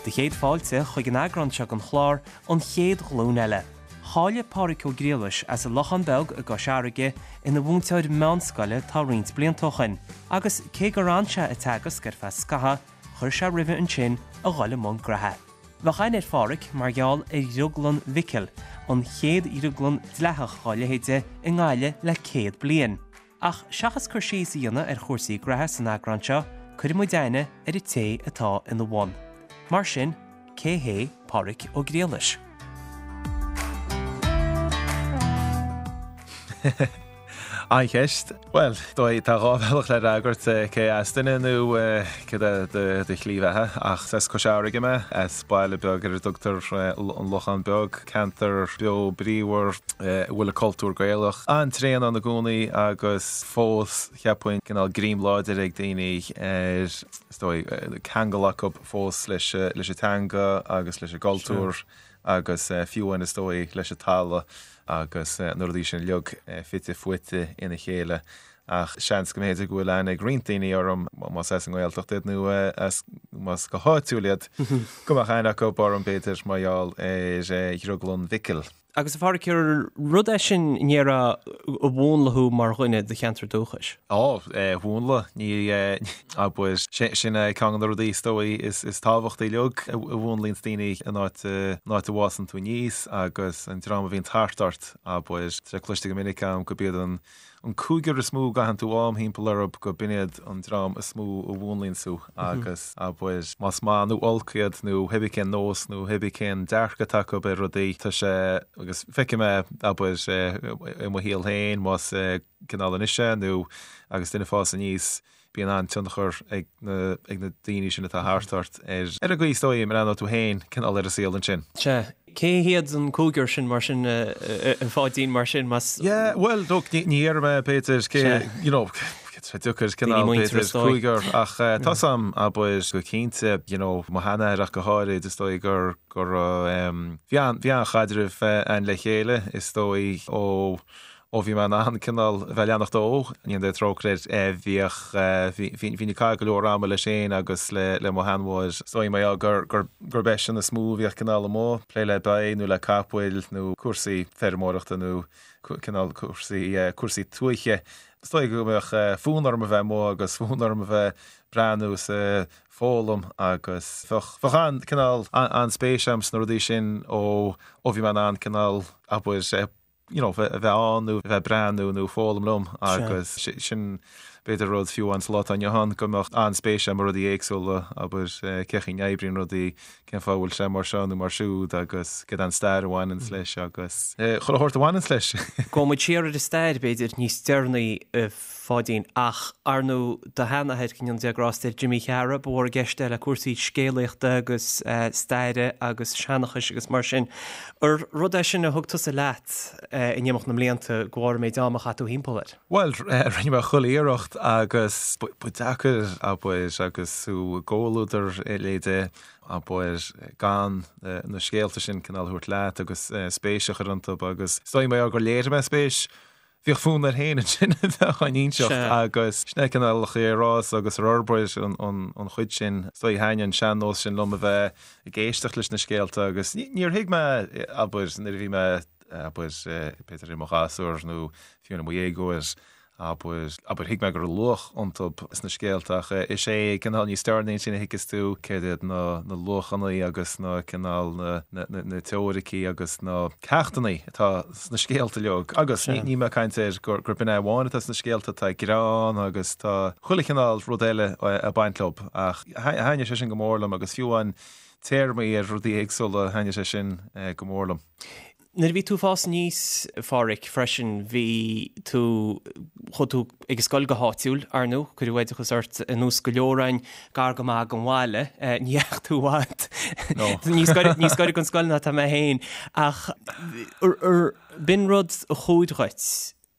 Do chéad fáilte chuig an eagrán seo den chlár, An Chéad Ghlúin Eile. Cháiligh Pádhraic Ó Griallais as an Lochán Beag i gCois Fharraige ina mhúinteoir meánscoile tá roinnt blianta ó shoin, agus cé gur fhan sé ag teagasc ar feadh scathaimh, chuir sé roimhe ansin a dhul i mbun graithe. Bheadh aithne ar Phádhraic mar gheall ar Dhrioglann Mhicil, an chéad dhrioglann dleathach dhá leithéide i nGaillimh le 100 bliain. Ach seachas cur síos a dhéanamh ar chúrsaí graithe san eagrán seo, cuirfidh muid aithne ar an té atá ina bhun. Mar sin, cé hé Pádhraic Ó Griallais? An-cheist. Bhuel, dóigh, tá dhá bhealach le fhreagairt, cé as duine nó céard é do shlí bheatha. Ach is as Cois Fharraige mé, as baile beag ar a dtugtar An Lochán Beag, ceantar beo bríomhar a bhfuil an cultúr Gaelach an-tréan ann i gcónaí agus fós, cheapfainn, cineál greim láidir ag daoine ar, is dóigh, ceangal acu fós leis an teanga agus leis an gcultúr. agus fiú amháin is dóigh leis an talamh agus na rudaí sin uilig fite fuaite ina chéile. Ach seans go mb'fhéidir go bhfuil aithne ag roinnt daoine orm, más as an nGaeltacht iad nó as, más go háitiúil iad, go mbeadh aithne acu orm b'fhéidir mar gheall ar Dhrioglann Mhicil. Agus a Phádhraic, ar rud é sin an ndéarfá a mhúnlaigh thú mar dhuine do cheantar dúchais? Á, mhúnlaigh, ní, abair, sin é ceann de na rudaí is dóigh is tábhachtaí uilig a mhúnlaíonns daoine an áit, an áit a bhfásann tú aníos agus an dream a bhíonn thart ort, abair. Tá sé cloiste go minic agam gurb iad an An cúigear is mó a gcaitheann tú am thimpeall orthu go b'in iad an dream is mó a mhúnlaíonns thú agus, abair, más maith nó olc iad nó pé bith cén nós nó pé bith cén dearcadh atá acu ar rudaí, tá sé, agus feicim é, abair, i mo shaol féin, más cineál anois é nó agus duine ag fás aníos, bíonn an-tionchar ag na ag na daoine sin atá thart ort ar ar an gcaoi is dóigh a mbreathnóidh tú féin cineál ar an saol ansin. Sea. Cé hiad an cúigear sin mar sin, a Pháidín, mar sin, más. Yeah, bhuel, look, ní ní déarfaidh mé b'fhéidir cé, you know, tá sé deacair cineál b'fhéidir cúigear ach tá 's a'm, abair, go cinnte, you know, mo sheanathair ach go háirid, is dóigh gur go raibh, bhí an bhí an-chaidreamh a'inn le chéile, is dóigh, ó Ó bhí mé in ann cineál a bheith ag leanacht dó, go ndéana Dia trócaire air, bhíodh, bhí, bhínn ag caitheamh go leor ama leis féin agus le, le mo sheanmháthair. Is dóigh mar gheall gur, gur, gurb eisean is mó a bhíodh cineál amuigh, ag plé le ba nó le capaill nó cúrsaí feirmeoireachta nó cineál cúrsaí, cúrsaí tuaithe. Is dóigh go mbeadh fonn orm a bheith amuigh agus fonn orm a bheith ag breathnú is ag foghlaim agus bheadh, bheadh an, cineál, an-spéis agam sna rudaí sin ó, ó bhí mé in ann cineál, abair, you know, a bheith ann nó a bheith ag breathnú nó foghlaim liom agus sin b'fhéidir rud fiú amháin sa lá atá inniu ann go mbeadh an-spéis agam i rudaí éagsúla, abair cén chaoi a n-oibríonn rudaí, cén fáth a bhfuil sé mar seo nó mar siúd agus céard é an stair a bhaineanns leis agus chuile shórt a bhaineanns leis. Gabhfaidh muid siar ar an stair b'fhéidir níos deireanaí a Pháidín, ach ar ndóigh do sheanathair, go ndéana Dia grásta air, Jimí Cheara, ba mhór i gceist é le cúrsaí scéalaíochta agus staire agus seanchais agus mar sin. Ar rud é sin a thug tusa leat in imeacht na mblianta de bharr an méid ama a chaith tú thimpeall air? Bhuel, rinne mé chuile iarracht agus ba deacair, abair, agus tú i gcomhluadar a leithéide, abair, gan na scéalta sin cineál a thabhairt leat agus spéis a chur iontu agus is dóigh mar gheall gur léirigh mé spéis Bhíodh fonn air féin ansin a bheith á n-inseacht agus sin é cineál an chaoi ar fhás agus ar fhorbair an chuid sin. Is dóigh thaitin an sean-nós sin liom a bheith ag éisteacht leis na scéalta agus níor thuig mé, abair, nuair a bhí mé, abair, b'fhéidir i mo ghasúr nó fiú i mo dhéagóir, abair, abair, thuig mé go raibh luach iontu sna scéalta ach is é cineál níos deireanaí ansin a thuigeas tú céard iad na luachanna agus na cineál na na teoiricí agus na ceachtanna atá sna scéalta uilig agus níl mé ag caint ar gur b'in é amháin atá sna scéalta, tá greann agus tá chuile chineál rud eile ag baint leo ach thaitnigh sé sin go mór liom agus fiú amháin téarmaí ar rudaí éagsúla thaitnigh sé sin go mór liom. Nuair a bhí tú ag fás aníos, a Phádhraic, freisin, bhí tú, chuaigh tú ag an scoil go háitiúil, ar ndóigh, cuireadh oideachas ort ar nós go leor againn, gar go maith don bhaile, ní dheachaigh tú i bhfad, níos gaire, níos gaire don scoil ná tá mé féin, ach ar, b'in rud a chuaigh dhuit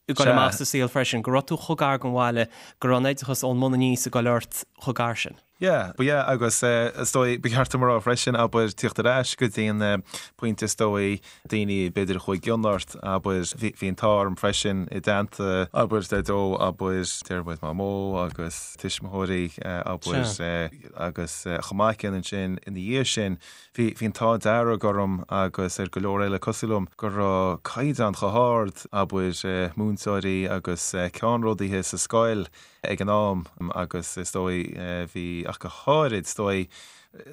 ag dul amach sa saol freisin, go raibh tú chomh gar don bhaile, go raibh an oideachas ón mbun aníos ag dul ort chomh gar sin. Yeah, but yeah, agus is dóigh, ba cheart dom a rá freisin, abair, tíocht ar ais go dtí an pointe is dóigh, daoine b'fhéidir a chuaigh i gcion ort, abair, bhí, bhí an t-ádh orm freisin i dteannta, abair, Daideo, abair, deir muid Mamó agus tuismitheoirí, abair, agus chomh maith céanna ansin ina dhiaidh sin, bhí, bhí an t-ádh dearg orm agus ar go leor eile cosúil liom go raibh caighdeán chomh hard, abair, múinteoirí agus ceannródaithe sa scoil, ag an am agus is dóigh bhí, ach go háirid is dóigh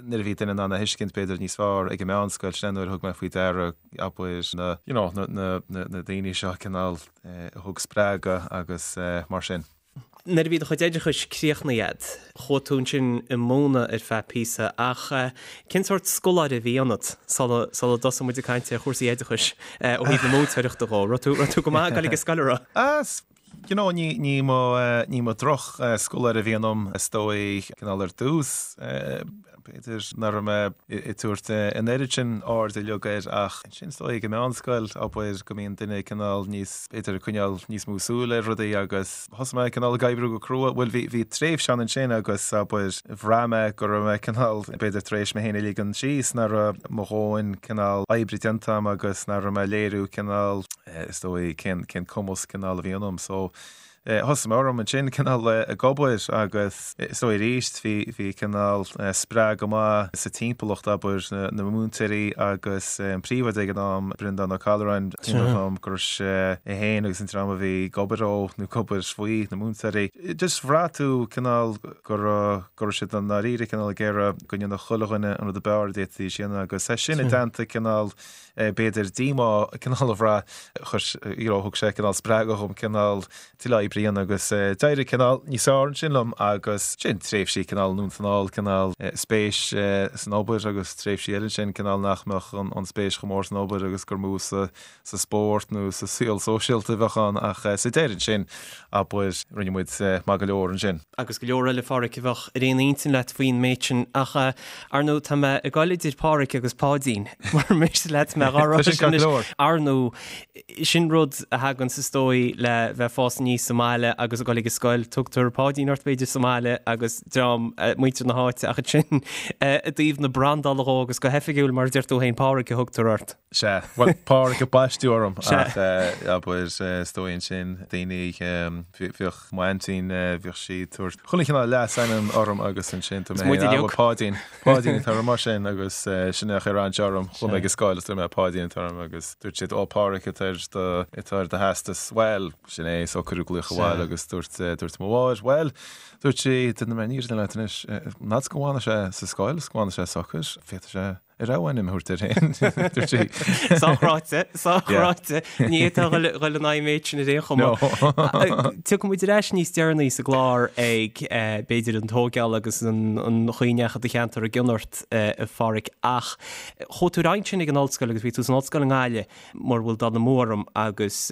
nuair a bhí duine in ann a thuiscint b'fhéidir níos fearr ag an meánscoil, sin é nuair a thug mé faoi deara abair na, you know, na, na, na, na daoine seo cineál a thug spreagadh agus mar sin. Nuair a bhí do chuid oideachais críochnaithe agat, chuaigh tú ansin ag múineadh ar feadh píosa ach cén sórt scoláire a bhí ionat sula, sula dtosaigh muid ag caint ar chúrsaí oideachais ó thaobh na múinteoireachta dhó? Raibh tú, raibh tú go maith ag dul ag an scoil, an raibh? Ah, You know, ní, ní mba, ní mba droch-scoláire a bhí ionam, is dóigh, cineál ar dtús, b'fhéidir nach raibh mé ag tabhairt an oiread sin airde uilig air ach ansin is dóigh ag an meánscoil, abair, go mbíonn duine cineál níos, b'fhéidir ag coinneáil níos mó súil ar rudaí agus thosaigh mé cineál ag oibriú go crua, bhuel bhí, bhí tréimhse ann ansin agus abair, bhraith mé go raibh mé cineál, b'fhéidir tar éis mé féin a ligean síos, nach raibh mo dhóthain cineál oibre déanta agam agus nach raibh mé ag léiriú cineál. is dóigh, cén, cén cumas cineál a bhí ionam. So, thosaigh mé orm ansin cineál ag obair agus is dóigh arís bhí, bhí cineál spreagadh maith sa timpeallacht, abair, na, na múinteoirí agus an príomhoide ag an am, Breandán Ó Callúráin, cuimhin liom go raibh sé é féin agus an dream a bhí ag obair dó nó ag obair faoi, na múinteoirí. Just bhraith tú cineál go raibh, go raibh siad i ndáiríre cineál ag iarraidh go ndéanfadh chuile dhuine an rud ab fhearr a d'fhéadfaidís a dhéanamh agus é sin i dteannta cineál b'fhéidir díomá cineál a bhraith, chuir, you know, thug sé cineál spreagadh dhom cineál tuilleadh oibre a dhéanamh agus d'éirigh cineál níos fearr ansin liom agus sin tréimhsí cineál anonn is anall, cineál spéis san obair agus tréimhsí eile ansin cineál nach mbeadh an spéis chomh mór san obair agus gur mó sa sa spórt nó sa saol sóisialta a bheadh ann ach sa deireadh ansin, abair, rinne muid maith go leor ansin. agus go leor eile, a Pháraic, a bheadh ar aon intinn leat faoin méid sin ach, ar ndóigh, tá mé ag goil idir Páraic agus Páidín, mura miste leat mé dhá rá sin anois. Ar ndóigh, sin rud a thaganns is dóigh le bheith ag fás aníos sa mbaile agus ag goil ag an scoil, tugtar Páidín ort b'fhéidir sa mbaile agus dream, muintir na háite ach ansin i dtaobh na brandála dhó agus go hoifigiúil mar a deir tú féin Páraic a thugtar ort. Sea, bhuel, Páraic a baisteadh orm ach abair is dóigh ansin daoine, bhíodh m'aintín, bhíodh sí ag tabhairt chuile chineál leasainm orm agus ansin tá mé féin, ah, bhuel, Páidín, Páidín atá orm mar sin agus sin é a chuir aithne orm, chuaigh mé ag an scoil is dúirt mé Páidín atá orm agus dúirt siad, ó, Páraic atá ar do, atá ar do theastas, bhuel, sin é, so cuireadh glaoch abhaile agus dúirt, dúirt mo mháthair, bhuel, dúirt sí, déanfaidh mé an fhírinne leat anois, n'fheadar go bhfanfaidh sé sa scoil is go bhfanfaidh sé socair, féadfaidh sé A rogha ainm a thabhairt air féin, dúirt sí. Sách ráite, sách ráite. Ní fhéadfá a dhul in aghaidh an méid sin ar aon chuma. Tiocfaidh muid ar ais níos deireanaí sa gclár ag, b'fhéidir, an tógáil agus an chaoi a ndeachaigh do cheantar i gcion ort, a Pháraic, ach chuaigh tú ar aghaidh ansin ag an ollscoil agus bhí tú san ollscoil i nGaillimh, mura bhfuil dul amú orm, agus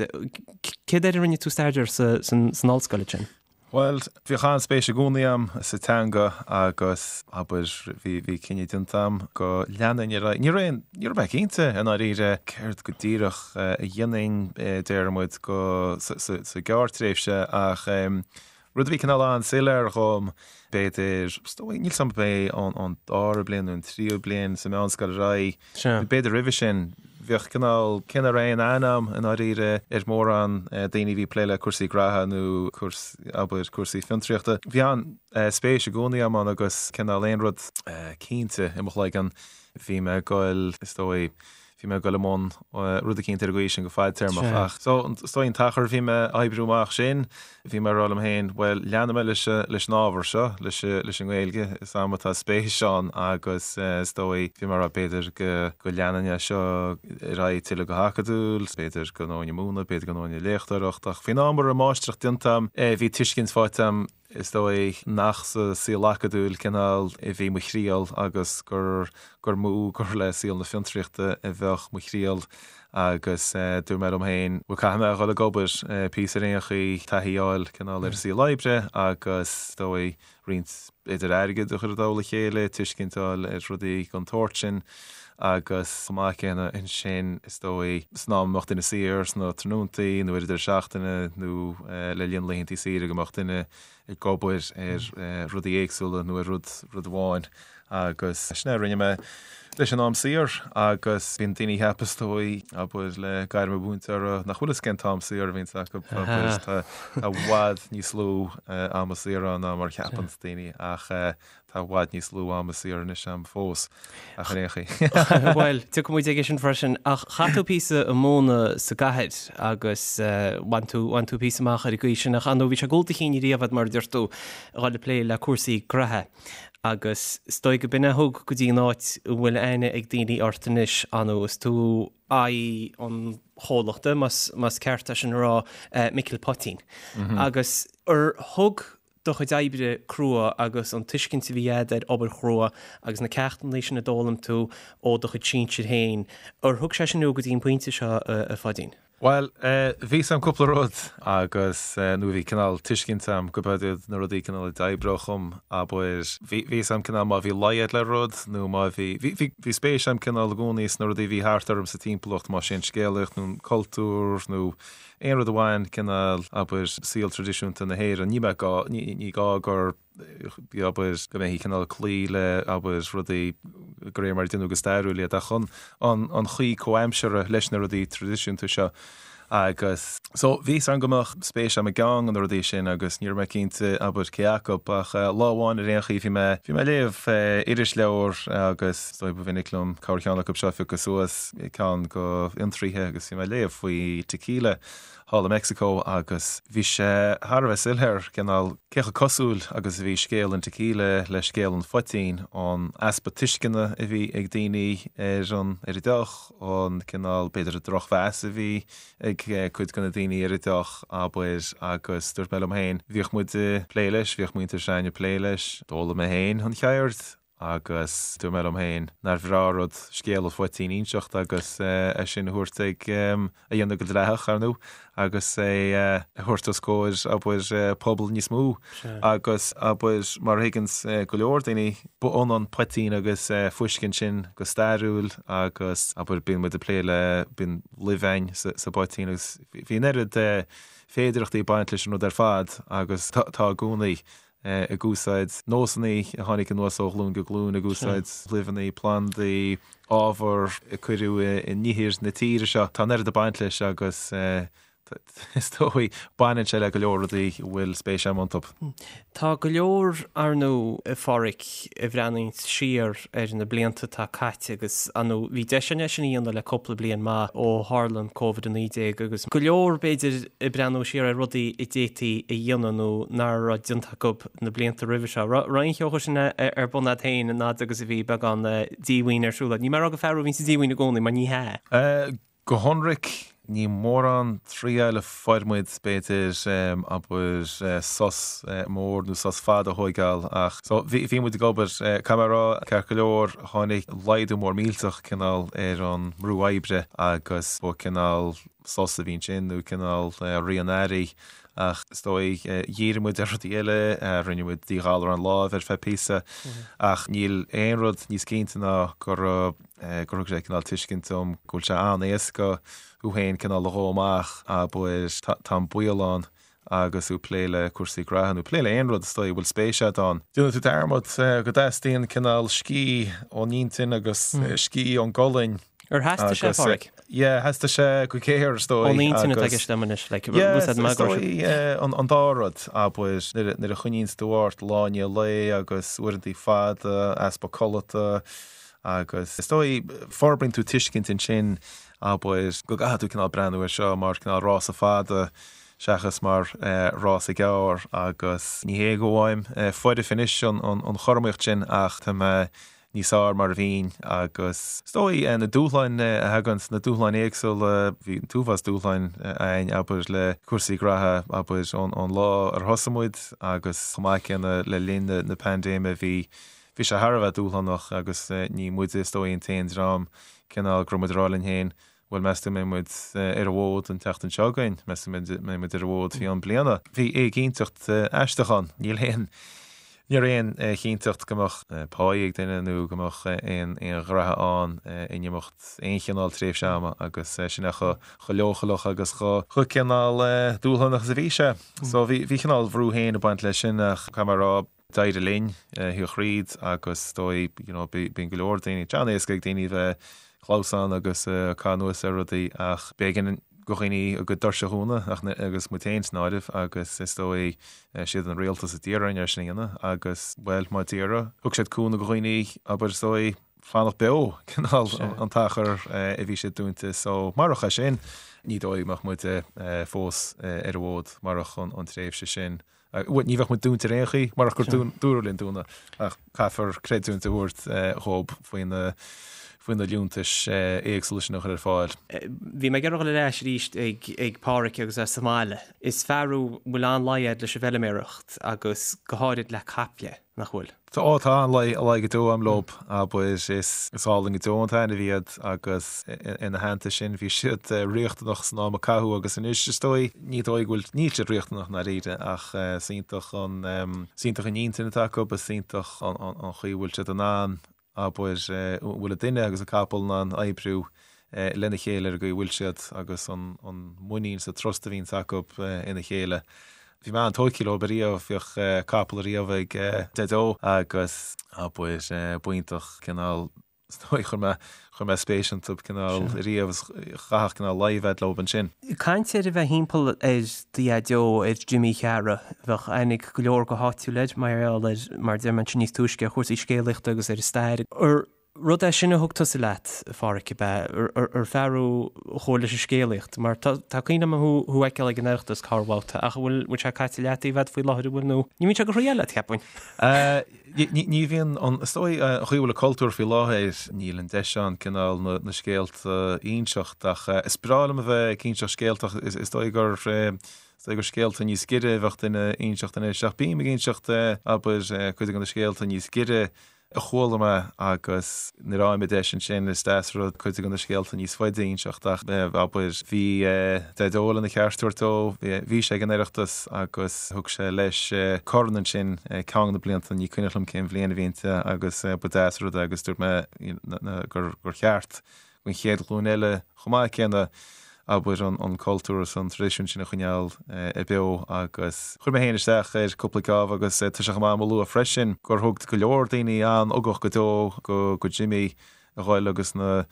céard air a rinne tú staidéar san ollscoil ansin? Bhuel, bhíodh an-spéis i gcónaí a'm sa teanga agus, abair, bhí, bhí cinneadh déanta a'm go leanfainn ar aghaidh. Ní raibh aon, ní raibh mé cinnte i ndáiríre céard go díreach a dhéanfainn, déarfaidh muid, go, sa, sa, sa ghearrtréimhse ach rud a bhí cineál an-soiléir dhom, b'fhéidir, is dóigh, níl 's a'm ab é an, an dara bliain nó an tríú bliain sa mheánscoil ar aghaidh, B'fhéidir roimhe sin, bheadh cineál, cé nach raibh aon aithne a'm i ndáiríre ar mhórán daoine a bhí ag plé le cúrsaí graithe nó cúrsaí, abair, cúrsaí fiontraíochta. Bhí an-spéis i gcónaí a'm ann agus cineál aon rud cinnte i mo chloigeann, bhí mé ag goil, is dóigh, bhí mé ag goil i mbun rud eicínt ar an gcaoi sin go fadtéarmach. Ach so, is dóigh an t-achar a bhí mé ag oibriú amach sin, Bhí mé ag rá liom féin, bhuel, leanfaidh mé leis, leis an ábhar seo, leis, leis an nGaeilge, is a'm atá spéis ann agus is dóigh, bhí mé ag rá b'fhéidir go, go leanfainn é seo ar aghaidh tuilleadh go hacadúil, b'fhéidir go ngabhfainn ag múineadh, b'fhéidir go ngabhfainn ag léachtóireacht ach faoin am a raibh máistreacht déanta a'm, bhí tuiscint faighte a'm, is dóigh, nach sa saol acadúil cineál a bhí mo thriall agus gur, gur mó gur le saol na fiontraíochta a bheadh mo thriall. Agus dúirt mé liom féin, bhuel caithfidh mé a dhul ag obair píosa ar aon chaoi, taithí a fháil cineál ar an saol oibre agus is dóigh roinnt b'fhéidir airgead a chur i dtoll a chéile, tuiscint a fháil ar rudaí den tsórt sin agus chomh maith céanna ansin is dóigh san am a mbeadh duine saor sna tráthnóntaí nó ar an deireadh seachtaine nó le linn laethantaí saoire go mbeadh duine ag obair ar rudaí éagsúla nó ar rud rud amháin agus sin é a rinne mé leis an am saor agus bíonn daoine ag ceapadh is dóigh, abair, le gairm an mhúinteora nach bhfuil fhios cén t-am saor a bhíonns acu, abair, tá i bhfad níos lú ama saor ann ná mar a cheapann daoine ach tá i bhfad níos lú ama saor anois a'm fós. Ach ar aon chaoi. Bhuel, tiocfaidh muid aige sin freisin. Ach chaith tú píosa ag múineadh sa gcathair agus bhain tú, bhain tú píosa amach ar an gcaoi sin. Ach ar ndóigh, bhí sé ag gabháil do chinn riamh a'd, mar a deir tú, a dhul ag plé le cúrsaí graithe. Agus is dóigh go b'in a thug go dtí an áit a bhfuil aithne ag daoine ort anois, ar ndóigh, is tú aghaidh an chomhlachta, más, más ceart é sin a rá, Micil Poitín. Agus ar thug do chuid oibre crua agus an tuiscint a bhí a'd ar obair chrua agus na ceachtanna sin a d'fhoghlaim tú ó do chuid sinsir féin, ar thug sé sin thú go dtí an pointe seo, a Pháidín? Bhuel, bhí 'fhios a'm cúpla rud agus, nó bhí cineál tuiscint a'm go b'iad na rudaí cineál a d'oibreodh dhom, abair, bhí 'fhios a'm cineál má bhí laghad le rud nó má bhí, bhí, bhí, bhí spéis a'm cineál i gcónaí sna rudaí a bhí thart orm sa timpeallacht, más é an scéalaíocht nó an cultúr nó Aon rud a bhain, cineál, abair, saol traidisiúnta na hÉireann, ní bheadh gá, ní gá gur, abair, go mbeifí cineál ag cloí le, abair, rudaí de réir mar a deineadh go stairiúil iad, ach an, an chaoi comhaimseartha leis na rudaí traidisiúnta seo. Agus, so, bhí 'fhios a'm go mbeadh spéis a'm i gceann de na rudaí sin agus ní raibh mé cinnte, abair, cé acu, ach lá amháin ar aon chaoi bhí mé, bhí mé ag léamh irisleabhar agus is dóigh ba mhinic liom corrcheann acu seo a phiocadh suas, ceann de Fhiontraíthe agus bhí mé ag léamh faoi tequila thall i Meicsiceo agus bhí sé thar a bheith soiléir cineál cé chomh cosúil agus a bhí scéal an tequila le scéal an phoitín, an easpa tuisceana a bhí ag daoine ar an ar an deoch, an cineál b'fhéidir an drochmheas a bhí ag cuid de na daoine ar an deoch, abair, agus dúirt mé liom féin, bhíodh muid ag plé leis, bhíodh muintir s'againne ag plé leis, d'fhoghlaim mé féin an cheird. Agus dúirt mé liom féin nár bhreá rud scéal an phoitín a inseacht agus é sin a thabhairt ag, a dhéanamh go dleathach, ar ndóigh, agus é a thabhairt os comhair, abair, pobal níos mó. Agus, abair, mar a thuigeanns go leor daoine, ba ionann poitín agus fuisce ansin go stairiúil agus, abair, bíonn muid ag plé le, bíonn luibh a'inn sa bpoitín agus bhí an oiread féidireachtaí ag baint leis an rud ar fad agus tá i gcónaí. ag úsáid nósanna a tháinig anuas ó ghlúin go glúin, ag úsáid luibheanna, plandaí, ábhar a cuireadh in ithir na tíre seo. Tá an oiread ag baint leis agus is dóigh, baineann sé le go leor rudaí a bhfuil spéis agam iontu. Tá go leor, ar ndóigh, a Pháraic, a bhreathnaíonns siar ar na blianta atá caite agus, ar ndóigh, bhí deis againn é sin a dhéanamh le cúpla bliain maith ó tharla an Covid-19 agus go leor, b'fhéidir, ag breathnú siar ar rudaí a d'fhéadfaí a dhéanamh nó nach raibh déanta acu na blianta roimhe seo. Raibh aon cheo sin ar bun agat féin an fhad agus a bhí beagán díomhaoin ar siúl agat? Níl mé ag rá gur fear thú a bhíonn sa díomhaoin i gcónaí, mar ní hea. Go hionraic, ní mórán triail a fuair muid, b'fhéidir, abair, sos mór nó sos fada a thóigeáil ach so bhí muid ag obair, caithfidh mé a rá, ceart go leor, tháinig laghdú mór millteach cineál ar an mbrú oibre agus ba cineál, sos a bhí ansin nó cineál rith an earraigh ach is dóigh dhírigh muid ar rudaí eile, rinne muid díghalarán láimhe ar feadh píosa ach níl aon rud níos cinnte ná gur gur thug sé cineál tuiscint dom go bhfuil sé an-éasca thú féin cineál a dhó amach abair tá an baol ann agus tú ag plé le cúrsaí graithe nó plé le aon rud is dóigh a bhfuil spéis agat ann. Déanann tú dearmad go dteastaíonn cineál scíth ón intinn agus scíth ón gcolainn. Ar theastaigh sé, a Pháraic? Yeah, theastaigh sé go géar is dóigh. Ón intinn atá i gceist agam anois, like, Yeah, is dóigh an dá rud, abair, nuair a choinníonns tú ort lá i ndiaidh lae agus uaireantaí fada, easpa codlata agus is dóigh forbraíonn tú tuiscint ansin, abair, go gcaithfidh tú cineál breathnú air seo mar cineál rása fada seachas mar rása gearr agus ní hé go bhfaighim foirfe anois an chothromaíocht sin ach tá mé níos fearr mar a bhínn agus is dóigh na dúshláin a thagann, na dúshláin éagsúla, bhí an t-uafás dúshláin againn abair le cúrsaí graithe abair ón lá ar thosaigh muid agus chomh maith céanna le linn na paindéime bhí bhí sé thar a bheith dúshlánach agus ní muide is dóigh an t-aon dream cineál go raibh muid ag rá linn féin. Bhuel, meas tú an mbeidh muid ar an bhfód an tseachtain seo chugainn? Meas tú an mbeidh muid ar an bhfód faoi cheann bliana? Bhí éiginnteacht aisteach ann. Níl aon, ní raibh aon chinnteacht go mbeadh páí ag duine nó go mbeadh aon ghraithe ann in imeacht aon chineál tréimhse ama agus sin é chomh leochaileach agus chomh cineál dúshlánach is a bhí sé. So bhí cineál bhrú féin ag baint leis sin ach caithfidh mé a rá, D'éirigh linn thiar thríd agus is dóigh, you know, bíonn go leor daoine, tá sé an-éasca ag daoine bheith clamhsán agus caitheamh anuas ar rudaí ach b'éigean do dhaoine a gcuid doirse a dhúnadh ach agus muid féin san áireamh agus is dóigh siad an rialtas a d'iarr orainn é sin a dhéanamh agus bhuel má d'iarradh thug siad cúnamh do dhaoine abair is dóigh fanacht beo cineál an t-achar a bhí siad dúnta so marach é sin ní dóigh go mbeadh muid fós ar an bhfód marach an tréimhse sin. Bhuel, ní bheadh muid dúnta ar aon chaoi, marach gur dúradh linn dúnadh, ach caithfear creidiúint a thabhairt dhób faoi na faoi na liúntais éagsúla sin a chur ar fáil. Bhí mé ag iarraidh dul ar ais arís ag ag Páraic agus é sa mbaile. Is fear thú a bhfuil an-luí agat leis an bhfeilméaracht agus go háirid le caiple. nach bhfuil? Tá, ó tá an-luí go deo a'm leob, abair, is álainn go deo an t-ainmhí iad agus ina theannta sin bhí siad riachtanach san am a caitheadh agus anois is dóigh, ní dóigh go bhfuil, níl siad riachtanach i ndáiríre ach is iontach an, is iontach an intinn atá acu, is iontach an chaoi a bhfuil siad in ann abair, an bhfuil an duine agus an capall in ann oibriú lena chéile ar an gcaoi a bhfuil siad agus an muinín is an trust a bhíonns acu ina chéile. Bhí mé an-tógtha leo ariamh, bhíodh capall ariamh ag Deaideo agus, abair, b'iontach cineál, is dóigh, chuir mé, chuir mé spéis iontu cineál ariamh is chaithfeadh cineál luí a bheith leo ansin. Caint ar a bheith thimpeall ar do Dhaideo, ar Jimí Chearra, bheadh aithne ag go leor go háitiúil air mar gheall ar, mar a deir mé ansin níos túisce, ar chúrsaí scéalaíochta agus ar an stair. Ar rud é sin a thug tusa leat, a Pháraic, ab ea? Ar fear thú a chuaigh leis an scéalaíocht? Mar tá cuimhne agam thú a fheiceáil ag an Oireachtas corrbhabhta ach an bhfuil bhfuil sé caite i leataobh agat faoi láthair, an bhfuil nó ní bhíonn sé go thriail leat, cheapfainn. Ní bhíonn an, is dóigh, an chaoi a bhfuil an cultúr faoi láthair, níl an deis ann cineál na scéalta a inseacht ach is breá liom a bheith ag inseacht scéalta ach is dóigh gur, is dóigh gur scéalta níos giorra a bheadh duine a inseacht anois ach bím ag inseacht, abair, cuid de na scéalta níos giorra a chuala mé agus nuair a fhaighim an deis ansin is deas an rud cuid de na scéalta níos faide a inseacht ach abair bhí Daideo lena cheart a thabhairt dó, bhí sé ag an Oireachtas agus thug sé leis corn ansin ceann de na blianta, ní cuimhneach liom cén bhliain a bhí inti agus ba deas an rud é agus dúirt mé gur cheart don chéad ghlúin eile chomh maith céanna, abair, an cultúr is an traidisiún sin a choinneáil beo agus chuir mé féin isteach ar cúpla geábh agus tá sé chomh maith agam a lua freisin gur thug go leor daoine an-ugach go deo go Jimmy a ghoil agus na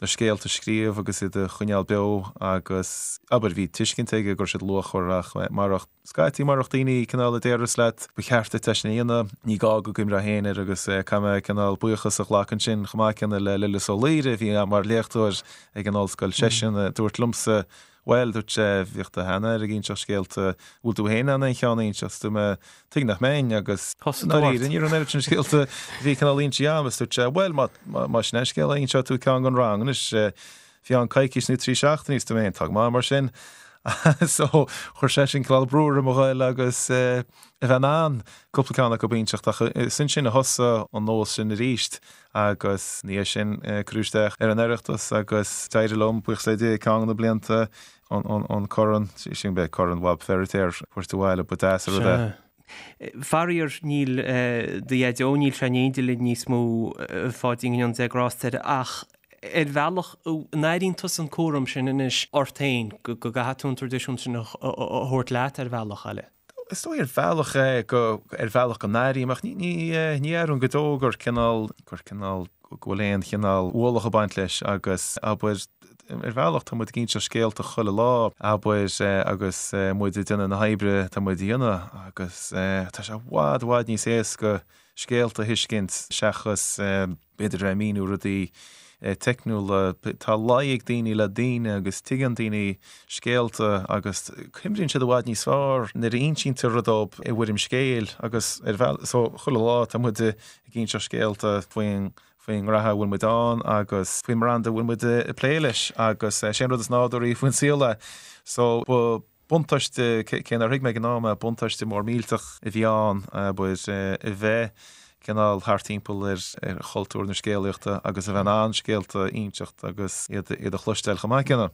scéalta a scríobh agus iad a choinneáil beo agus, abair, bhí tuiscint aige go raibh siad luachmhar ach marach Scaití marach daoine cineál a déarfas leat ba cheart duit é sin a dhéanamh, ní gá go gcuimhneofá féin air agus caithfidh mé cineál buíochas a ghlacadh ansin chomh maith céanna le Lillis Ó Laoire a bhí mar léachtóir ag an ollscoil, seisean a dúirt liomsa bhuel, dúirt sé, bhíodh do sheanathair ag inseacht scéalta, bhfuil tú féin in ann aon cheann a inseacht? Dúirt mé, tuige nach mbeinn agus i ndáiríre ní raibh an oiread sin scéalta a bhí cineál inste agam agus dúirt sé, bhuel má sin é an scéal inseoidh tú ceann don rang anois. Bhí ann coicís nó 3 seachtainí is dúirt mé féin, tá go maith mar sin. So, chuir sé sin cineál brú orm a ghoil agus a bheith in ann cúpla ceann acu a inseacht ach is ansin a thosaigh an nós sin arís agus ina dhiaidh sin cuireadh isteach ar an Oireachtas agus d'éirigh liom, buíochas le Dia, ceann de na blianta an corn, sin b'é Corn Bhab Feiritéar a thabhairt abhaile, ba deas an rud é. Faraor, níl do Dhaideo, níl sé in éindí linn níos mó, a Pháidín, go ndéana Dia grásta air, ach ar bhealach, an airíonn tusa an cúram sin anois ort féin, go gcaithfidh tú an traidisiún sin a thabhairt leat ar bhealach eile? Is dóigh ar bhealach go, ar bhealach go n-airím, ach ní, ní, ní airím go deo gur cineál, gur cineál, go bhfuil aon chineál ualach ag baint leis agus, abair, ar bhealach tá muid ag inseacht scéalta chuile lá, abair, agus muid ag déanamh na hoibre atá muid a dhéanamh agus tá sé i bhfad, i bhfad níos éasca scéalta a thuiscint seachas, b'fhéidir a bheith ag míniú rudaí teicniúla. Tá luí ag daoine le daoine agus tuigeann daoine scéalta agus cuimríonn siad i bhfad níos fearr nuair a insítear rud dóibh i bhfoirm scéil agus ar bhealach so chuile lá tá muid ag inseacht scéalta faoin faoin ngraithe a bhfuil muid ann agus faoin mbranda a bhfuil muid ag plé leis agus sé an rud is nádúraí faoin saol é. So ba Buntáiste, cé nár thuig mé ag an am é, buntáiste mór millteach a bhí ann, abair, a bheith cineál thart timpeall ar chultúr na scéalaíochta agus a bheith in ann scéalta a inseacht agus iad a chloisteáil chomh maith céanna.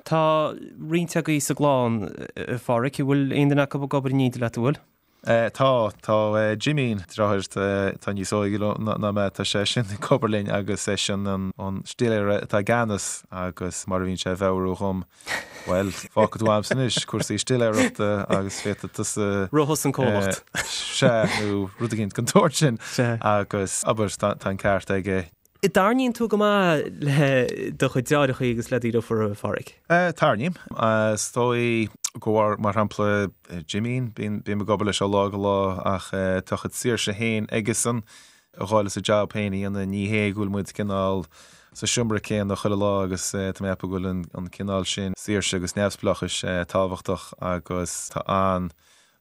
Tá roinnt agaibh sa gclann, a Pháraic, an bhfuil aon duine acu ag obair in éindí leat, an bhfuil? Tá, tá Jimín, deartháir atá níos óige ná mé, tá seisean ag obair linn agus eisean an stiléara atá i gceannas agus mar a bhíonn sé a mheabhrú dhom, bhuel, fágfaidh tú a'msa anois cúrsaí stiléireachta agus féadfaidh tusa. Rith thusa an comhlacht. Sea, nó rud éigin den tsórt sin agus, abair, tá an ceart aige. An dtarraingíonn tú go maith le do chuid deartháireacha agus le do dheirfiúr, a Pháraic? Tarraingím. Is dóigh go bhar, mar shampla, Jimín, bím ag obair leis ó lá go lá ach tá a chuid saoirse féin aigesan a dhul is a jab féin a dhéanamh. Ní hé go bhfuil muid cineál sa seomra céanna chuile lá agus tá mé ag ceapadh go bhfuil an cineál sin saoirse agus neamhspleáchais tábhachtach agus tá an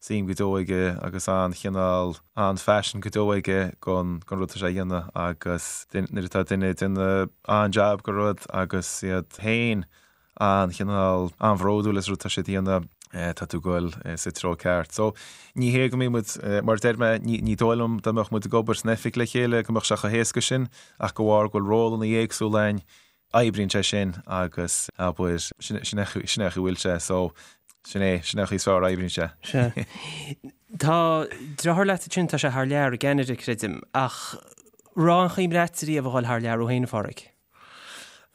suim go deo aige agus an-chineál, an-phaisean go deo aige gon, gon rud atá sé a dhéanamh agus nuair atá duine ag déanamh an-jab go rud agus iad féin an-chineál, an-bhródúil as rud atá siad a dhéanamh, tá tú ag goil sa treo ceart. So, ní hé go mbíonn muid, mar a deir mé, ní, ní dóigh liom dá mbeadh muid ag obair san oifig le chéile go mbeadh sé chomh héasca sin ach de bharr go bhfuil rólanna éagsúla againn, oibríonn sé sin agus abair, sin é an chaoi a bhfuil sé so sin é, sin é an chaoi is fearr a oibríonn sé. Sea. Tá deartháir leat ansin, tá sé thar lear i gCeanada, creidim, ach raibh aon chuimhne agat riamh a dhul thar lear thú féin, a Pháraic?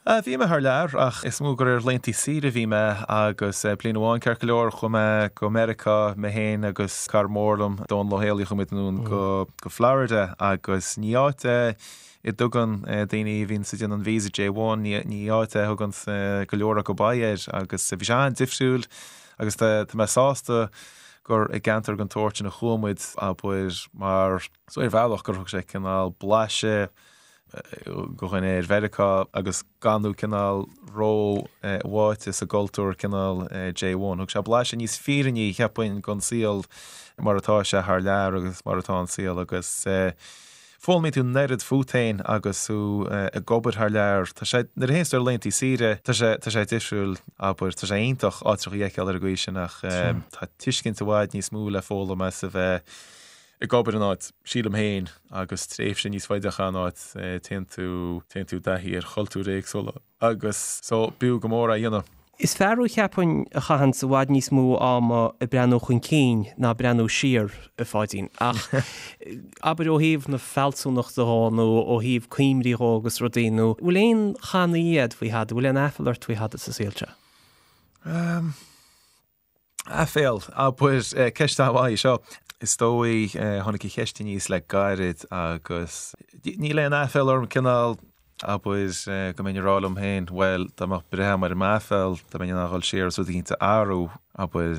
Bhí mé thar lear ach is mó gur ar laethanta saoire a bhí mé agus bliain amháin ceart go leor chuaigh mé go Meiriceá, mé féin agus cara mór liom, Dónal Ó Héalaí, chuaigh muid anonn go Florida agus ní áit é a dtugann daoine a bhíonns ag déanamh an visa J1, ní áit é a thugann go leor acu aghaidh air agus bhí sé an-difriúil agus tá mé sásta gur i gceantar den tsórt sin a chuaigh muid, abair, mar so ar bhealach gur thug sé cineál blaiseadh do dhuine ar Mheiriceá agus gan tú cineál ró-bháite sa gcultúr cineál J1. Thug sé blaiseadh níos fírinní, cheapfainn, den saol mar atá sé thar lear agus mar atá an saol agus Foghlaimíonn tú an oiread fút féin agus tú ag obair thar lear. Tá sé, nuair a théanns tú ar laethanta saoire, tá sé, tá sé difriúil, abair, tá sé iontach áiteacha a fheiceáil ar an gcaoi sin ach tá tuiscint i bhfad níos mó le foghlaim as a bheith ag obair in áit, sílim féin, agus tréimhse níos faide a chaitheamh in áit, téann tú, téann tú i dtaithí ar chultúir éagsúla. Agus so, b'fhiú go mór é a dhéanamh. Is fear thú cheapfainn a chaitheanns i bhfad níos mó ama ag breathnú chun cinn ná breathnú siar, a Pháidín. Ach abair ó thaobh na fealsúnachta dhó nó ó thaobh cuimhní dhó agus rudaí nó bhfuil aon channaí a'd faoi thada, bhfuil aon aiféal ort faoi thada sa saol seo? Aiféal, abair, ceist an-mhaith í seo. Is dóigh, tháinig an cheist aníos le gairid agus níl aon aiféal orm, cineál, abair, go mbeinn ag rá liom féin, bhuel, dá mbeadh breith agam ar m'aiféal, dá mbeinn in ann a dhul siar agus rud eicínt a athrú, abair,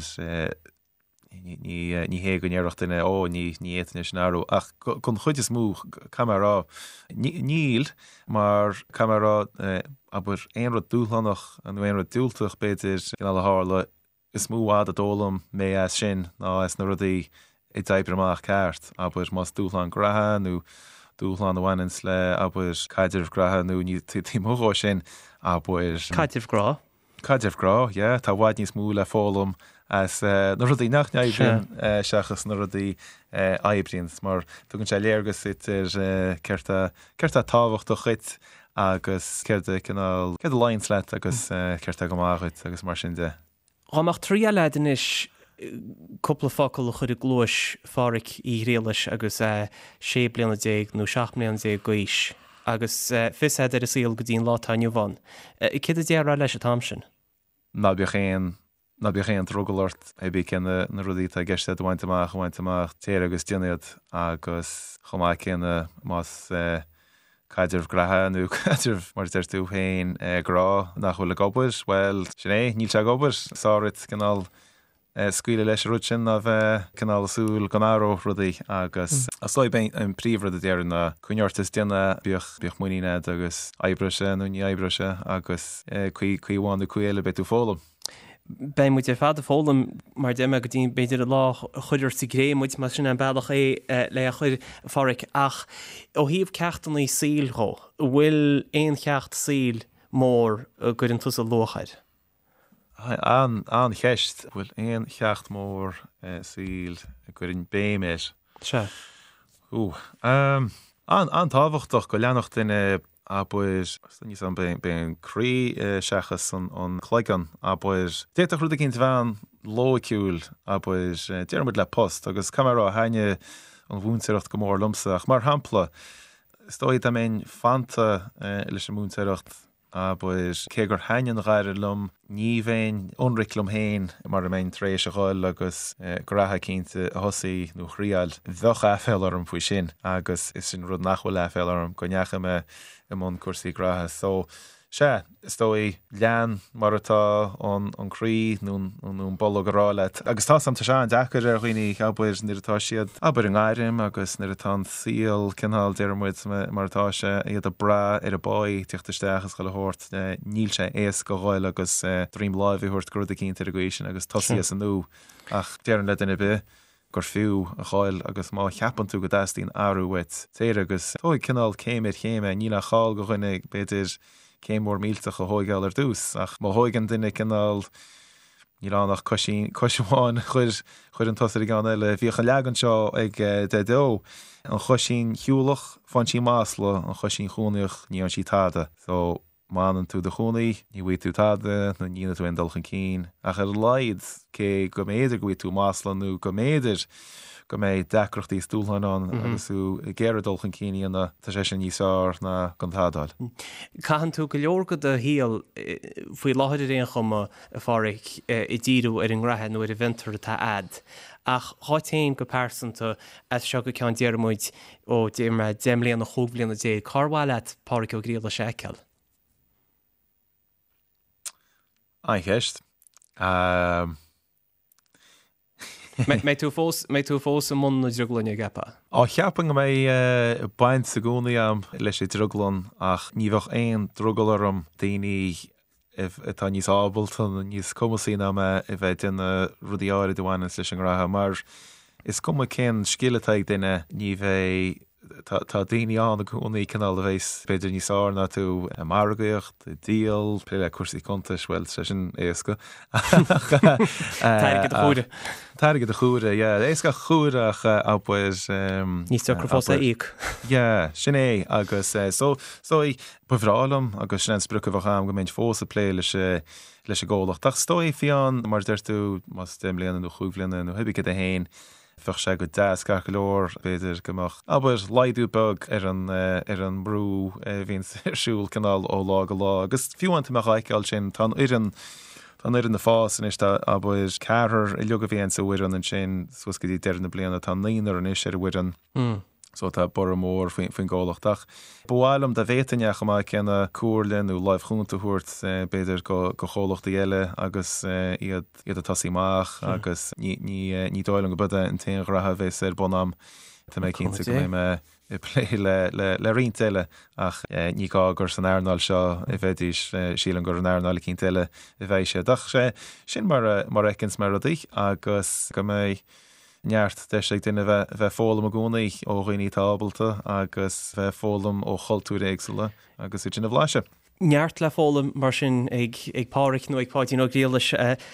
ní hé go ndéarfadh duine, ó, ní fhéadfainn é sin a athrú, ach don chuid is mó, caithfidh mé a rá, níl, mar caithfidh mé a rá, abair, aon rud dúshlánach nó aon rud diúltach, b'fhéidir, cineál a tharla, Is mó i bhfad a d'fhoghlaim mé as sin ná as na rudaí a d'oibrigh amach ceart, abair, más dúshlán graithe nó dúshlán a bhaineanns le, abair, caidreamh graithe nó ní taobh amuigh dhó sin, abair. Caidreamh grá. Caidreamh grá, yeah. Tá i bhfad níos mó le foghlaim as na rudaí nach n-oibríonn seachas na rudaí a oibríonn, mar tugann sé léargas duit ar céard tá, céard tá tábhachtach dhuit agus céard a cineál, céard a luíonns leat agus céard tá go maith dhuit agus mar sin de. Dhá mbeadh triail a'd anois cúpla focal a chur i gcluais Pháraic Uí Ghriallais agus é 16 bliana nó 17 mbliana d'aois agus fios a'd ar an saol go dtí an lá atá inniu ann, céard a déarfá leis an t-am sin? Ná bíodh aon Ná bíodh aon drogall ort, pé bí cé na rudaí atá i gceist agat a bhaint amach, a bhaint amach, téir agus déan iad agus chomh maith céanna más caidreamh graithe nó caidreamh mar a deir tú féin grá nach bhfuil ag obair, bhuel, sin é, níl sé ag obair. Is fearr duit cineál scaoileadh leis an rud sin ná bheith cineál ag súil go n-athródh rudaí agus is dóigh b'é an príomhrud a déarfainn ná coinnigh ort is déan é, bíodh, bíodh muinín agat agus oibreoidh sé nó ní oibreoidh sé agus caoi, caoi amháin nó caoi eile beidh tú ag foghlaim. Beidh muid ar fad ag foghlaim, mar a deir mé, go dtí b'fhéidir an lá a chuirfear sa gcré muid, más sin an bealach é le a chur, a Pháraic. Ach ó thaobh ceachtanna saoil dhó, an bhfuil aon cheacht saoil mór a gcuireann tusa luach air? An-cheist. An bhfuil aon cheacht mór saoil a gcuirfinn béim air? Sea. Ooh. An-tábhachtach go leanfadh duine abair, níl 's a'm, b'é an croí seachas an cloigeann, abair. D'fhéadfadh rud eicínt a bheith an-loighciúil, abair, déarfaidh muid le post, agus caithfidh mé a rá, thaitnigh an mhúinteoireacht go mór liomsa, ach mar shampla, is dóigh dá mbeinn fanta leis an múinteoireacht, Abair, cé gur thaitin an ghairm liom, ní bheinn ionraic liom féin mara mbeinn tar éis a dhul agus graithe eicínt a thosaí nó a thriáil. Bheadh aiféala orm faoi sin agus is sin rud nach bhfuil aiféala orm, go ndeachaigh mé i mbun cúrsaí graithe. So, sea, is dóigh, lean mar atá an croí nó an bolg ag rá leat. Agus tá 's a'm, tá sé an-deacair ar dhaoine, abair, nuair atá siad, abair, i ngairm agus nuair atá an saol cineál, déarfaidh muid, mar atá sé, iad ag brath ar a bpáí tíocht isteach is chuile shórt, níl sé éasca a dhul agus droim láimhe a thabhairt go rud eicínt ar an gcaoi sin agus tosaí as an nua. Ach déarfainn le duine ar bith gur fiú a ghoil agus má cheapann tú go dteastaíonn athrú uait, téir agus tóig cineál céim ar chéim é. Níl aon chall go dhuine, b'fhéidir, céim mhór millteach a thóigeáil ar dtús ach má thóigeann duine cineál, Níl ann ach coisín, cois amháin a chuir, chuireann tusa ar an gceann eile. Bhíodh an leagan seo ag Daideo, an choisín shiúlach, faigheann sí masla, an choisín chónaíoch, ní fhaigheann sí tada. So, má fhanann tú i do chónaí, ní bhfaighidh tú tada nó ní dhéanfaidh tú aon dul chun cinn. Ach ar a laghad, cé go mb'fhéidir go bhfaighidh tú masla nó go mb'fhéidir go mbeidh deacrachtaí is dúshláin ann agus tú ag iarraidh dul chun cinn a dhéanamh, tá sé sin níos fearr ná gan tada a fháil. Caitheann tú go leor de do shaol faoi láthair ar aon chuma, a Pháraic, ag díriú ar an ngraithe nó ar an bhfiontar atá a'd. Ach dhuit féin go pearsanta, as seo go ceann déarfaidh muid, ó, déarfaidh mé, 10 mbliana, 15 bhliana, cár mhaith leat Páraic Ó Griallais a fheiceáil? An-cheist. Mbeidh tú fós, mbeidh tú fós i mbun na drioglainne, an gceapfá? Á, cheapfainn go mbeidh baint i gcónaí agam leis an drioglann ach ní bheadh aon drogall orm daoine atá níos ábalta nó níos cumasaí ná mé a bheith ag déanamh rudaí áirid a bhaineanns leis an ngraithe mar is cuma cén scil atá ag duine ní bheidh Tá daoine ann i gcónaí cineál a bheas b'fhéidir níos fearr ná tú i margaíocht, i díol, plé le cúrsaí cuntais, bhuel, sé sin éasca. Tá airgead a chomhaireamh. Tá airgead a chomhaireamh, yeah. Éasca a chomhaireamh ach abair. Níos deacra fós a íoc. Yeah, sin é agus so, so ba bhreá liom agus sin an sprioc a bheadh agam go mbeinn fós ag plé leis leis an gcomhlacht. Ach is dóigh fiú, mar a deir tú, más 10 mbliana nó chúig bhliana nó hibé céard é féin, Bheadh sé go deas ceart go leor, b'fhéidir go mbeadh, abair, laghdú beag ar an, ar an mbrú a bhíonns ar siúl cineál ó lá go lá. Agus fiú amháin tá mé dhá fheiceáil sin, tá an fhoireann, tá an fhoireann ag fás anois, tá, abair, ceathrar uilig a bhí sa bhfoireann ansin suas go dtí deireadh na bliana, tá naonúr anois ar an bhfoireann. So tá borradh mór faoin gcomhlacht. Ach ba mhaith liom dá bhféadfainn é chomh maith céanna comhairle nó láimh chúnta a thabhairt b'fhéidir go chomhlachtaí eile agus iad iad ag tosaí amach agus ní ní ní dóigh liom go b'é an t-aon ghraithe a bheas ar bun a'm. Tá mé cinnte go mbeidh mé ag plé le le le roinnt eile ach ní gá gur san earnáil seo a bheidís, sílim gur in earnáil eicínt eile a bheidh siad. Ach sé sin mar a mar a fheiceanns mé rudaí agus go mbeidh neart deis ag duine bheith ag foghlaim i gcónaí ó dhaoine atá ábalta agus bheith ag foghlaim ó chultúir éagsúla agus iad sin a bhlaiseadh. Neart le foghlaim mar sin ag Páraic nó ag Páidín Ó Griallais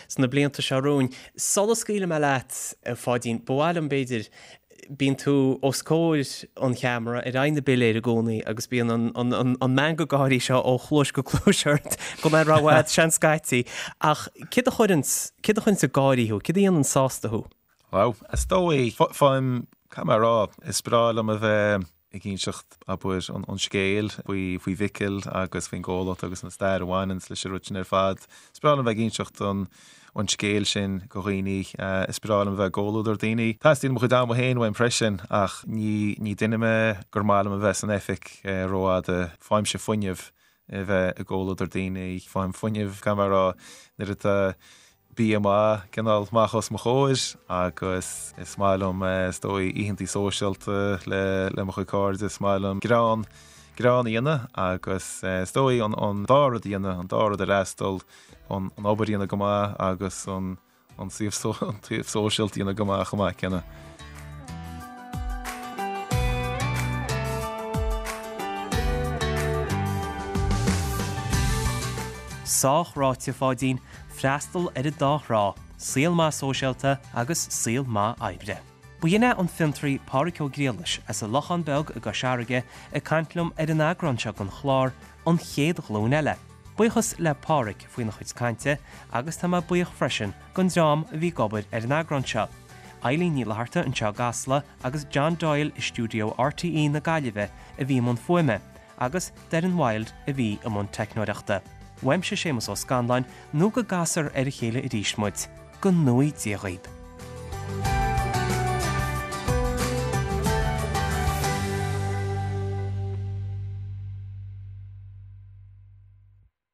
sna blianta seo romhainn. Sula scaoilfidh mé leat, a Pháidín, ba mhaith liom, b'fhéidir, bíonn tú os comhair an cheamara ar aghaidh na bpiléar i gcónaí agus bíonn an meangadh gáirí seo ó chluais go cluais ort gan é rófhada, seans scaití. Ach céard a chuireanns, céard a chuireanns ag gáirí thú? Céard a dhéanann sásta thú? Wow. Is dóigh, faighim, caithfidh mé a rá, is breá liom a bheith ag inseacht, abair, an scéil faoi, faoi Mhicil agus faoin gcomhlacht agus an stair a bhaineanns leis an rud sin ar fad. Is breá liom a bheith ag inseacht an, an scéil sin go dhaoine. Is breá liom a bheith i gcomhluadar daoine. Teastaíonn mo chuid ama féin uaim freisin ach ní, ní duine mé gur maith liom a bheith san oifig rófhada. Faighimse fuinneamh a bheith i gcomhluadar daoine. Faighim fuinneamh, caithfidh mé a rá, nuair atá bia maith cineál amach os mo chomhair agus is maith liom is dóigh oícheantaí sóisialta le le mo chuid cairde, is maith liom greann, greann a dhéanamh agus is dóigh an an dá rud a dhéanamh, an dá rud a fhreastal, an an obair a dhéanamh go maith agus an an taobh an taobh sóisialta a dhéanamh go maith chomh maith céanna. Sách ráite, a Pháidín, freastal ar an dá thrá, saol maith sóisialta agus saol maith oibre. B'in é an fiontraí Pádraic Ó Griallais as an Lochán Beag i gCois Fharraige ag caint liom ar an eagrán seo den chlár An Chéad Ghlúin Eile. Buíochas le Pádraic faoina chuid cainte agus tá mé buíoch freisin den dream a bhí ag obair ar an eagrán seo, Eileen Ní Fhlatharta anseo i gCasla agus John Doyle i stiúideo RTÉ na Gaillimhe a bhí i mbun fuaime agus Doireann Wilde a bhí i mbun teicneoireachta. Uaimse Séamus Ó Scanláin nó go gcasfar ar a chéile arís muid. Go ngnóthaí Dia dhaoib.